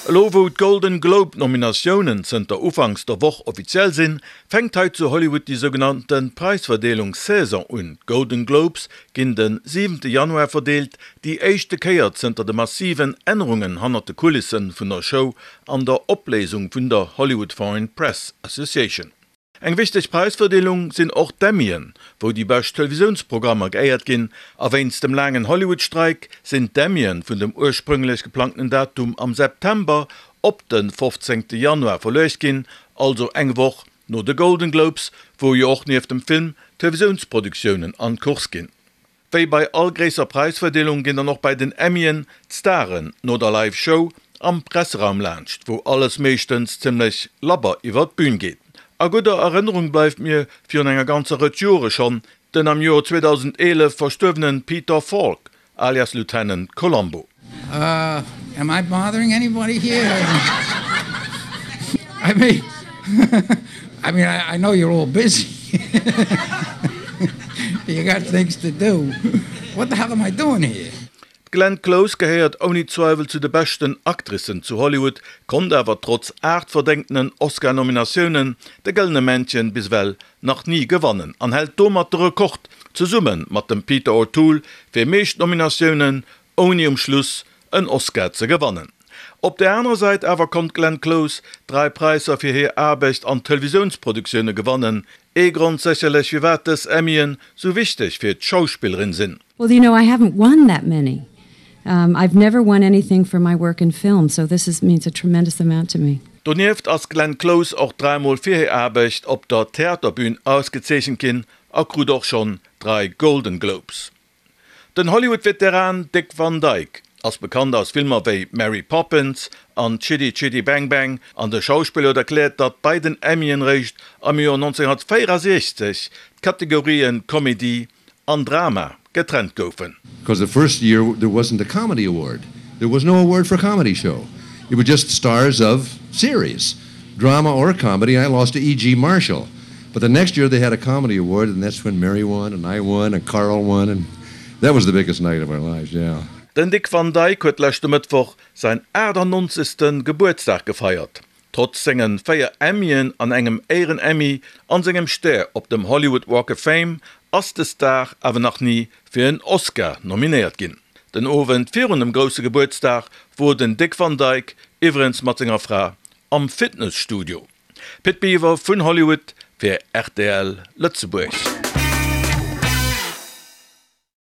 Elo wou d'Golden Globe Nominatiounen zënter Ufanks der Woch offiziell sinn, fänkt hei zu Hollywood déi sougenannte Präisverdeelungssaison un. D'Golden Globes ginn de siwente Januar verdeelt, déi éischte Kéier zënter de massiven Ännerungen hannert de Kulisse vun der Show an der Opléisung vun der Hollywood Foreign Press Association. Eng wichteg Präisverdeelung sinn och d'Emmyen, wou déi bescht Televisiounsprogrammer geéiert ginn. A wéinst dem laangen Hollywood-Streik sinn d'Emmyen vun dem ursprünglech geplangten Datum am September op de 15 Januar verluecht ginn, also eng Woch no de Golden Globes, wou jo och nieft dem Film Televisiounsproductiounen an d'Course ginn. Wéi bei all gréisser Präisverdeelung ginn dann och bei den Emmyen d'Staren no der Live Show am Presseraum laanscht, wou alles meeschtens zimmlech labber iwwer d'Bün geet. A gudder Erënnerung bleift mir virun enger ganzer Rëtsch Jore schonn den am Joer 2011 verstuerwenen Peter Falk alias Lieutenant Columbo. Am I bothering anybody here? I mean, I mean, I, I know you're all busy. You got things to do. What the hell am I doing here? D'Glenn Close gehéiert ouni Zweiwel zu de beschten Actricen zu Hollywood, konnt awer trotz 8 verdéngtenen Oscar-Nominatiounen de Gëllene Männchen bis ewell nach ni gewannen an hält domat de Rekord, zesumme mat dem Peter O'Toole, fir meescht Nominatiounen ouni um Schluss en Oscar ze gewannen. Op der anerer Säit awer konnt d'Glenn Close 3 Präisser fir hir Aarbecht an Televisiounsproduktioune gewannen, ee Grond sécherlech firwat dës Emmyen sou wichteg fir d'Schauspillerin sinn. Well you know I haven't won that many. I've never won anything for my work in film, so this is means a tremendous amount to me. Donieft ass d'Glenn Close och dräimol fir hir Aarbecht op der Theaterbün ausgezeechent ginn a krut och schonn 3 Golden Globes. Den Hollywood-Veteran Dick Van Dyke ass bekannt aus Filmer wéi Mary Poppins an Chitty Chitty Bang Bang an de Schauspiller huet erkläert, datt bei den Emmyen réischt am Joer 1964 d'Kategorien Komedie an Drama getrennt goufen. Because the first year there wasn't a comedy award. There was no award for comedy show. It was just stars of series, drama or comedy. I lost to E.G. Marshall. But the next year they had a comedy award and that's when Mary won and I won and Carl won and that was the biggest night of our lives, yeah. Den Dick Van Dyke huet leschte Mëttwoch säin 98. Gebuertsdag gefeiert. Trotz sengen 4 Emmyen an engem Éieren-Emmy an sengem Stär op dem Hollywood Walk of Fame ass de Star awer nach ni fir en Oscar nominéiert ginn. Den Owend virun dem grousse Gebuertsdag wor den Dick Van Dyke iwwerens mat senger Fra am Fitnesstudio. Pit Biwer vun Hollywood fir rtl Lëtzebuerg.